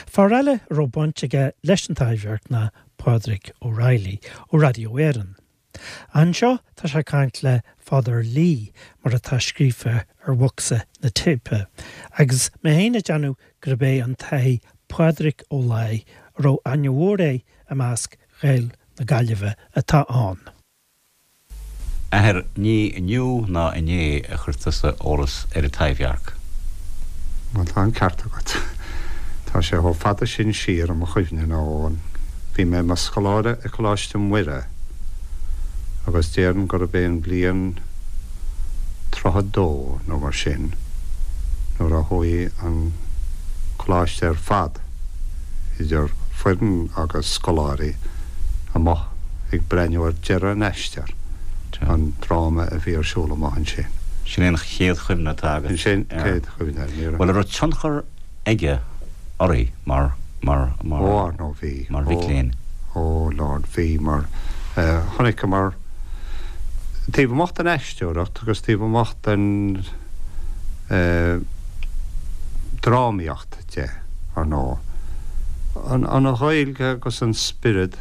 Fear eile a raibh baint aige leis an Taibhdhearc ná Pádraig O'Reilly ó Radio Éireann. Anseo tá sé ag caint le Father Lee mar atá scríofa ar bhocsa na téipe, agus mé féin ag déanamh gurb é an tAthair Pádraig Ó Laoi a raibh aithne mhór air i measc Ghaeil na Gaillimhe atá ann. Athair, ní inniu ná inné a chuir tusa eolas ar an Taibhdhearc. Bhuel, tá an ceart agat. Tá sé chomh fada sin siar i mo chuimhne nó bhí mé i mo scoláire i Coláiste Muire agus déarfainn gurb é an bhliain 32 nó mar sin nuair a chuaigh an coláiste ar fad, idir foireann agus scoláirí, amuigh ag breathnú ar deireadh an aistir, an dráma a bhí ar siúl amuigh ansin. Sin é an chéad chuimhne atá agat Sin é an chéad chuimhne. Ní raibh. Bhuel, an raibh tionchar aige oraibh mar, mar, mar. Ó, ar ndóigh bhí. Mar mhic léinn. Ó, Lord, bhí, mar chonaiceamar, taobh amuigh den aisteoireacht agus taobh amuigh den drámaíocht de, ar ndóigh, an Ghaeilge agus an spiorad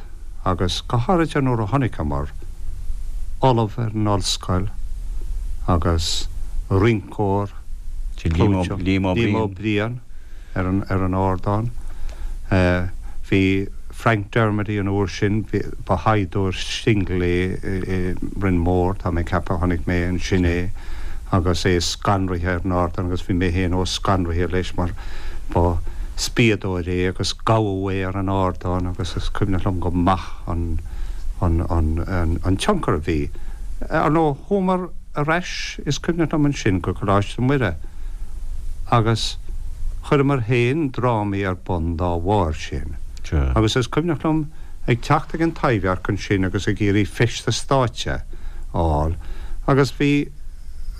agus go háirithe nuair a chonaiceamar ollamh ar an ollscoil agus rinceoir clúiteach, Liam Ó Briain, ar an ardán. Bhí Frank Dermody an uair sin, ba shaighdiúir singil é i Rinn Mór, tá mé ag ceapadh, chonaic mé ansin é agus é scanraithe ar an ardán agus bhí mé féin chomh scanraithe leis mar ba spiadóir é agus gabhadh é ar an ardán agus is cuimhneach liom go maith an an tionchar a bhí. Ar ndóigh, chuamar ar ais, is cuimhneach liom ansin, go Coláiste Muire agus chuireamar féin drámaí ar bun dá bharr sin. Agus is cuimhneach liom ag teacht ag an Taibhdhearc ansin agus ag iarraidh feisteas stáitse a fháil agus bhí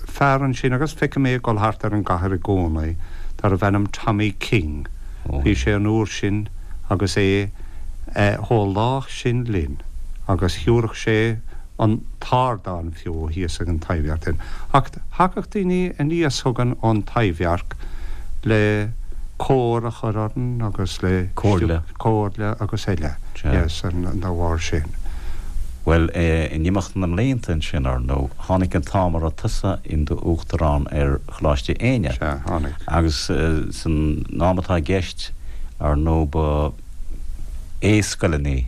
fear ansin agus feicim é ag dul thart ar an gcathair i gcónaí darbh ainm Tommy King. Bhí sé an uair sin agus é chomh lách sin linn agus thiúrfadh sé an t-ardán fiú thíos ag an Taibhdhearc dúinn. Ach thagadh daoine aníos chugainn ón Taibhdhearc le cóir a chur orainn agus le Comhairle. comhairle agus eile, yes, dá bharr sin. Bhuel, in imeacht na mblianta ansin, ar ndóigh, tháinig an t-am a raibh tusa in do Uachtarán ar Choláiste Éinne. Sea, tháinig. Agus san am atá i gceist, ar ndóigh, ba aoi-scoileanna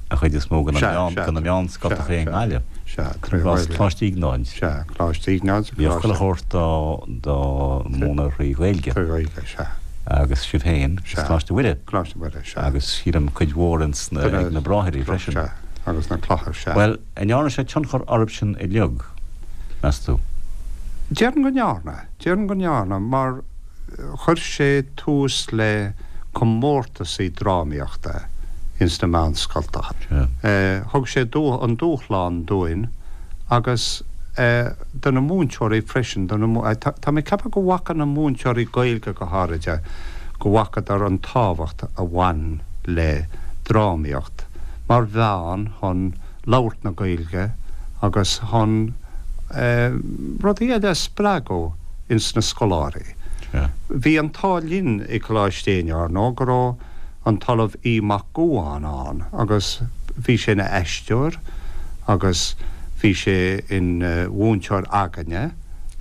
an chuid is mó de na meánscoltacha i nGaillimh. Sea, trí Ghaeilge. Coláiste Iognáid. Sea, Coláiste Iognáid. Bhíodh chuile shórt dá múineadh thrí Ghaeilge. Trí Ghaeilge, sea. Agus sibh féin, is Coláiste Mhuire. Coláiste Mhuire, sea. Agus sílim cuid mhór ins na, ag na Bráithrí freisin. Sea, agus na clocha, sea. Bhuel, an ndearna sé tionchar oraibhsean uilig, meas tú? Déarfainn go ndearna. Déarfainn go ndearna, mar chuir sé tús le comórtasaí drámaíochta ins na meánscoltacha. Thug sé an dúshlán dúinn agus do na múinteoirí freisin, do na, tá mé ag ceapadh go bhfaca na múinteoirí Gaeilge go háiride, go bhfacadar an tábhacht a bhain le drámaíocht mar mheán chun labhairt na Gaeilge agus chun rudaí eile a spreagadh ins na scoláirí. Bhí an t-ádh linn i Coláiste Éinne, ar ndóigh, go raibh an tOllamh Aodh Mac Gabhann ann agus bhí sé ina aisteoir agus bhí sé ina mhúinteoir againne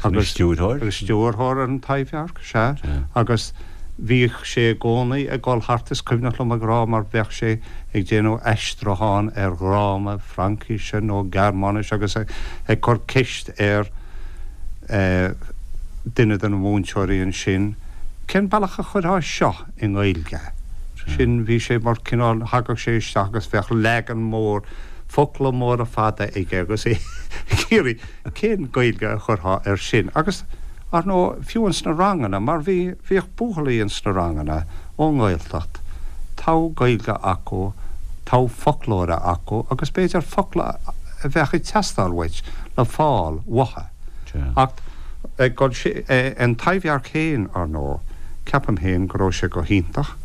agus stiúrthóir stiúrthóir ar an Taibhdhearc, sea, agus bhíodh sé i gcónaí ag dul thart, is cuimhneach liom ag rá mar bheadh sé ag déanamh aistriúchán ar dhráma Fraincise nó Gearmáinise agus ag cur ceist ar duine de na múinteoirí ansin, cén bealach a chuirfeá seo i nGaeilge? Sin, bhí sé mar cineál, thagadh sé isteach agus bheadh leagan mór, focla móra fada aige agus é ag iarraidh cén Gaeilge a chuirfeá air sin. Agus, ar ndóigh, fiú ins na ranganna, mar bhí, bhíodh buachaillí ins na ranganna ón nGaeltacht, togha Gaeilge acu, togha foclóra acu agus b'fhéidir focla a bheadh ag teastáil uait le fáil uathu. Ach ag dul an Taibhdhearc féin, ar ndóigh, ceapaim féin go raibh sé go hiontach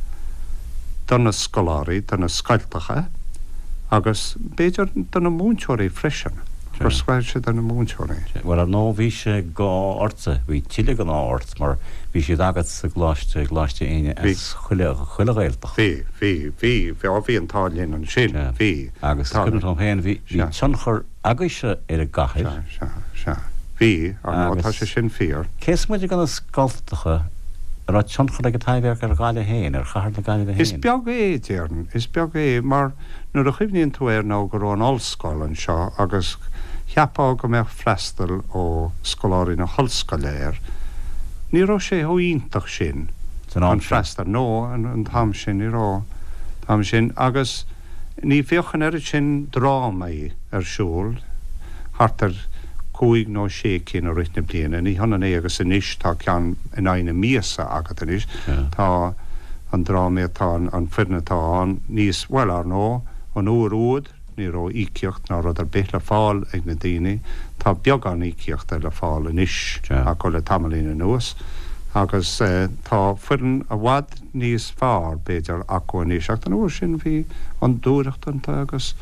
do na scoláirí, do na scoltacha agus b'fhéidir do na múinteoirí freisin. Gur scaoil siad de na múinteoirí. Bhuel, ar ndóigh, bhí sé go ortsa, bhí tuilleadh den ádh ort mar bhí siad agat sa gcoláiste, i gColáiste Éinne as chuile, chuile Ghaeltacht. Bhí, bhí, bhí, bhí, bhí an t-ádh linn ansin, bhí. Agus is cuimhin liom féin, bhí, bhí tionchar agaibhse ar an gcathair. Sea, sea, sea. Bhí, ar ndóigh, tá sé sin fíor. Cé is moite de na scoltacha, an raibh tionchar ag an Taibhdhearc ar Ghaillimh féin, ar chathair na Gaillimhe féin? Is beag é, déarfainn, is beag é, mar nuair a chuimhníonn tú air nó go raibh an ollscoil anseo agus cheapfá go mbeadh freastal ó scoláirí na hollscoile air. Ní raibh sé chomh iontach sin, an freastal, no, an t-am sin, ní raibh, an t-am sin agus ní bhíodh an oiread sin drámaí ar siúl, thart ar chúig nó sé cinn i rith na bliana, ní hionann é agus anois, tá ceann in aghaidh na míosa agat anois, tá an drámaí atá, an foireann atá ann níos, bhuel, ar ndóigh, an uair úd ní raibh íocaíocht ná rud ar bith le fáil ag na daoine, tá beagán íocaíochta le fáil anois acu le tamaillín anuas agus tá foireann i bhfad níos fearr, b'fhéidir, acu anois ach an uair sin bhí an dúthracht iontu agus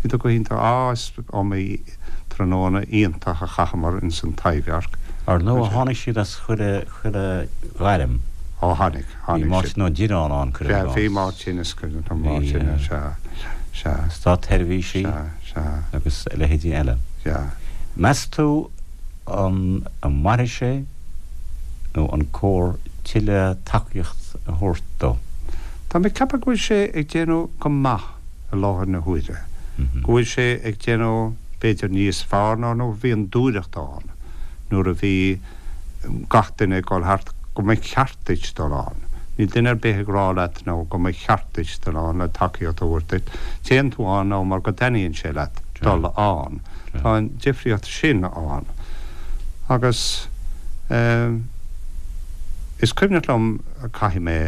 bhíodar go hiontach. Á, is iomaí tráthnóna iontach a chaitheamar ins an Taibhdhearc. Ar ndóigh tháinig siad as chuile, chuile ghairm. Ó tháinig. Bhí Máirtín Ó Direáin ann, cuirim i gcás. Bhí Máirtín, is cuimhin liom Máirtín, sea, sea. Státsheirbhísigh agus a leithéidí eile. Sea. Meas tú an mairfidh sé nó an cóir tuilleadh tacaíocht a thabhairt dó? Tá mé ag ceapadh go bhfuil sé ag déanamh go maith i láthair na huaire, go bhfuil sé ag déanamh b'fhéidir níos fearr ná nuair a bhí an dúthracht ann, nuair a bhí gach duine ag dul thart, go mba cheart duit dul ann. Níl duine ar bith ag rá leat nó go mba cheart duit dul ann le tacaíocht a thabhairt duit. Téann tú ann nó mar go dtaitníonn sé leat dul ann. Tá an difríocht sin ann. Agus eh is cuimhneach liom, caithfidh mé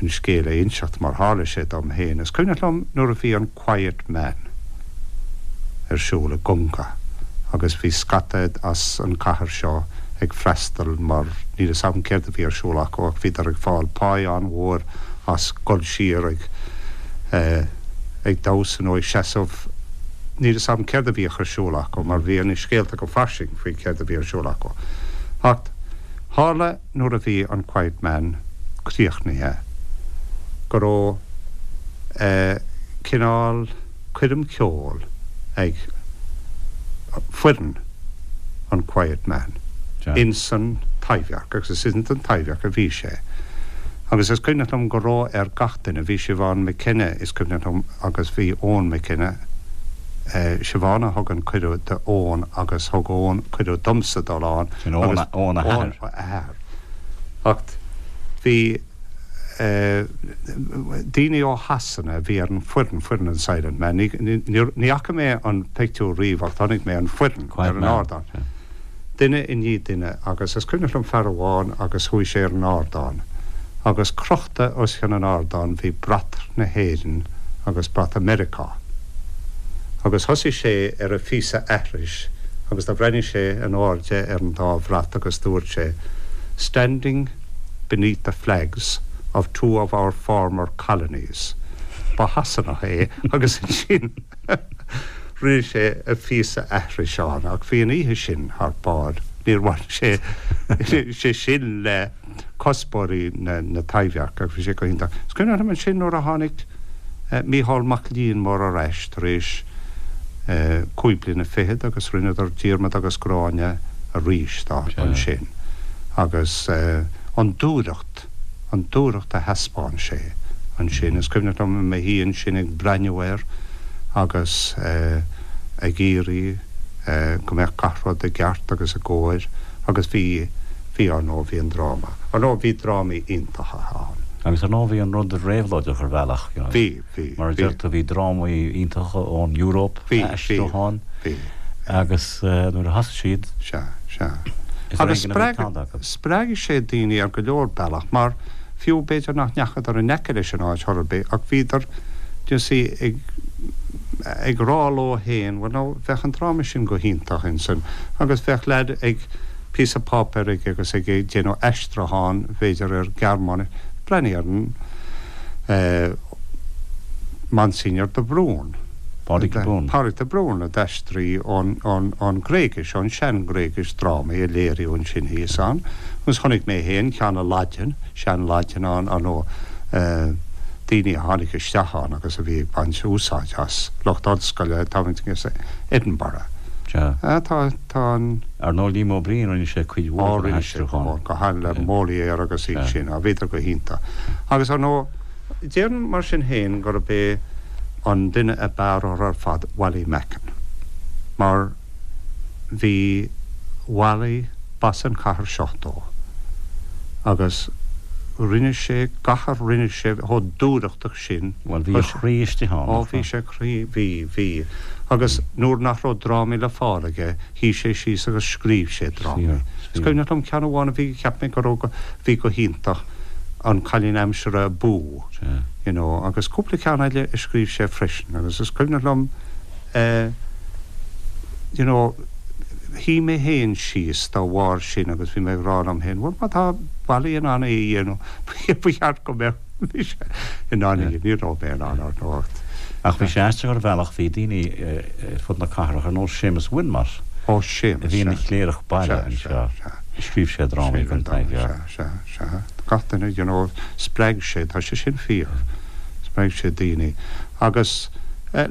an scéal a inseacht mar tharla sé dom féin, is cuimhneach liom nuair a bhí an Quiet Man ar siúl i gConga agus bhí scata as an cathair seo ag freastal mar níl fhios agam céard a bhí ar siúl acu ach bhíodar ag fáil páí an-mhór as dul siar ag ag damhsa nó ag seasamh níl fhios agam céard a bhíodh ar siúl acu mar bhí na scéalta go fairsing faoi céard a bhí ar siúl acu ach tharla nuair a bhí an Quiet Man críochnaithe, go raibh cineál coirm cheoil ag foireann an Quiet Man ins an Taibhdhearc, agus is ins an Taibhdhearc a bhí sé. Agus is cuimhneach liom go raibh ar gach duine, bhí Siobhán McKenna, is cuimhneach liom, agus bhí Eoin McKenna, Siobhán a thug an cuireadh d'Eoin agus thug Eoin cuireadh domsa dul ann, Sin Eoin a athair. Eoin a athair. Ach bhí daoine ó Shasana a bhí ar an foireann, foireann an Silent Man, ní fhaca mé an pictiúr riamh ach chonaic mé an foireann ar an ardán. Duine i ndiaidh duine agus is cuimhneach liom fear amháin agus chuaigh sé ar an ardán agus crochta os cionn an ardáin bhí brat na hÉireann agus brat Mheiriceá. Agus thosaigh sé ar a phíosa aithris agus do bhreathnaigh sé in airde ar an dá bhrat agus dúirt sé, Standing beneath the flags of two of our former colonies. Ba Shasanach é agus ansin rinne sé a phíosa aithris ann ach bhí an oíche sin thar barr. Níor bhain sé sé sin le cuspóirí na Taibhdheirce ach bhí sé go hiontach. Is cuimhin liom ansin nuair a tháinig Mícheál Mac Liammóir ar ais tar éis cúig bliana fichead agus rinneadar Diarmaid agus Gráinne arís ansin agus an dúthracht, an dúthracht a thaispeáin sé ansin. Is cuimhneach liom i mo shuí ansin ag breathnú air agus ag iarraidh go mbeadh gach rud i gceart agus i gcóir agus bhí, bhí, ar ndóigh, bhí an dráma. Ar ndóigh, bhí drámaí iontacha ann. Agus ar ndóigh, bhí an rud réabhlóideach ar bhealach, you know. Bhí, bhí, Mar a deir tú, bhí drámaí iontacha ón Euróip, Bhí, bhí, aistriúcháin, bhí. agus nuair a thosaigh siad, Sea, sea. is ar Agus éigean a bhí spreag, tada acu. spreag sé daoine ar go leor bealach, mar fiú b'fhéidir nach ndeachadar in aice leis an áit chor ar bith, ach bhíodar, you see, ag, ag rá leo fhéin, bhuel now, bheadh an dráma sin go hiontach ansin, agus bheadh leaid ag, píosa páipéir aige agus ag déanamh aistriúchán, b'fhéidir, ar Ghearmáinis. Breathnaigh ar an Monsignor de Brún. Pádraig de Brún. Pádraig de Brún a d'aistrigh ón, ón, ón Ghréigis, ón sean-Ghréigis, drámaí a léiríodh ansin thíos ann. Agus chonaic mé féin ceann i Laidin, sean-Laidin ann, ar ndóigh, daoine a tháinig isteach ann agus a bhí ag baint úsáid as, lucht ollscoile, táimid ag Edinburgh. Sea. Tá, tá an. Ar ndóigh Liam Ó Briain, rinne sé cuid mhór den aistriúchán. Go han, le Molière agus iad sin, bhíodar go hiontach. Agus ar ndóigh, déarfainn mar sin féin gurb é an duine ab fhearr orthu ar fad Wally Macken. Mar bhí Wally, b'as an chathair seo dó, agus rinne sé gach a rinne sé chomh dúthrachtach sin. Bhuel, bhí a chroí istigh ann, nach raibh? Ó, bhí sé croí, bhí, bhí. Agus nuair nach raibh drámaí le fáil aige, shuigh sé síos agus scríobh sé drámaí. Is cuimhneach liom ceann amháin a bhí, cheap mé go raibh, bhí go hiontach, An Cailín Aimsire Abú, you know, agus cúpla ceann eile a scríobh sé freisin. Agus is cuimhneach liom eh, you know, shuigh mé féin síos dá bharr sin agus bhí mé ag rá liom féin, bhuel má tá Wally in ann é a dhéanamh, ba cheart go mbeadh. Mise in ann é, ní raibh mé in ann ar ndóigh. Ach bhí sé aisteach ar bhealach, bhí daoine ar fud na cathrach, ar nós Séamus Wilmot, Ó, Séamus, a bhí ina chléireach baile anseo, scríobh sé drámaí don Taibhdhearc. Sea, sea, sea. Gach duine, you know, spreag sé, tá sé sin fíor, spreag sé daoine. Agus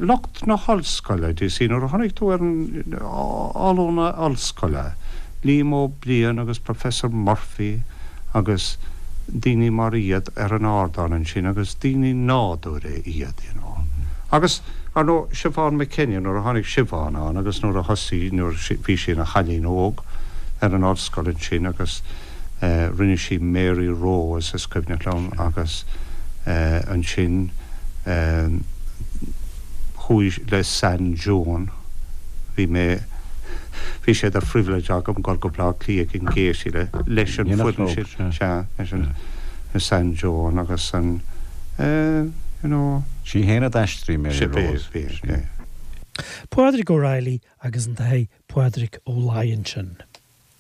lucht na hollscoile, do you see, nuair a chonaic tú ar an ollúna ollscoile, Liam Ó Briain agus Professor Murphy agus daoine mar iad ar an ardán ansin agus daoine nádúrtha iad, you know. Agus, ar ndóigh, Siobhán McKenna, nuair a tháinig Siobhán ann agus nuair a thosaigh, nuair a bhí sí ina chailín óg ar an ollscoil ansin agus eh rinne sí Mary Rose, is cuimhneach liom, agus eh ansin eh chuaigh le San Joan, bhí mé, bhí sé de phribhléid agam dul go Baile Átha Cliath ag an Gaiety le, leis an foireann sin, sea, leis an San Joan agus an eh, you know. Sí féin a d'aistrigh Mary Rose. Bhí, bhí, bhí. Pádraig O'Reilly agus an tAthair Pádraig Ó Laighin ansin.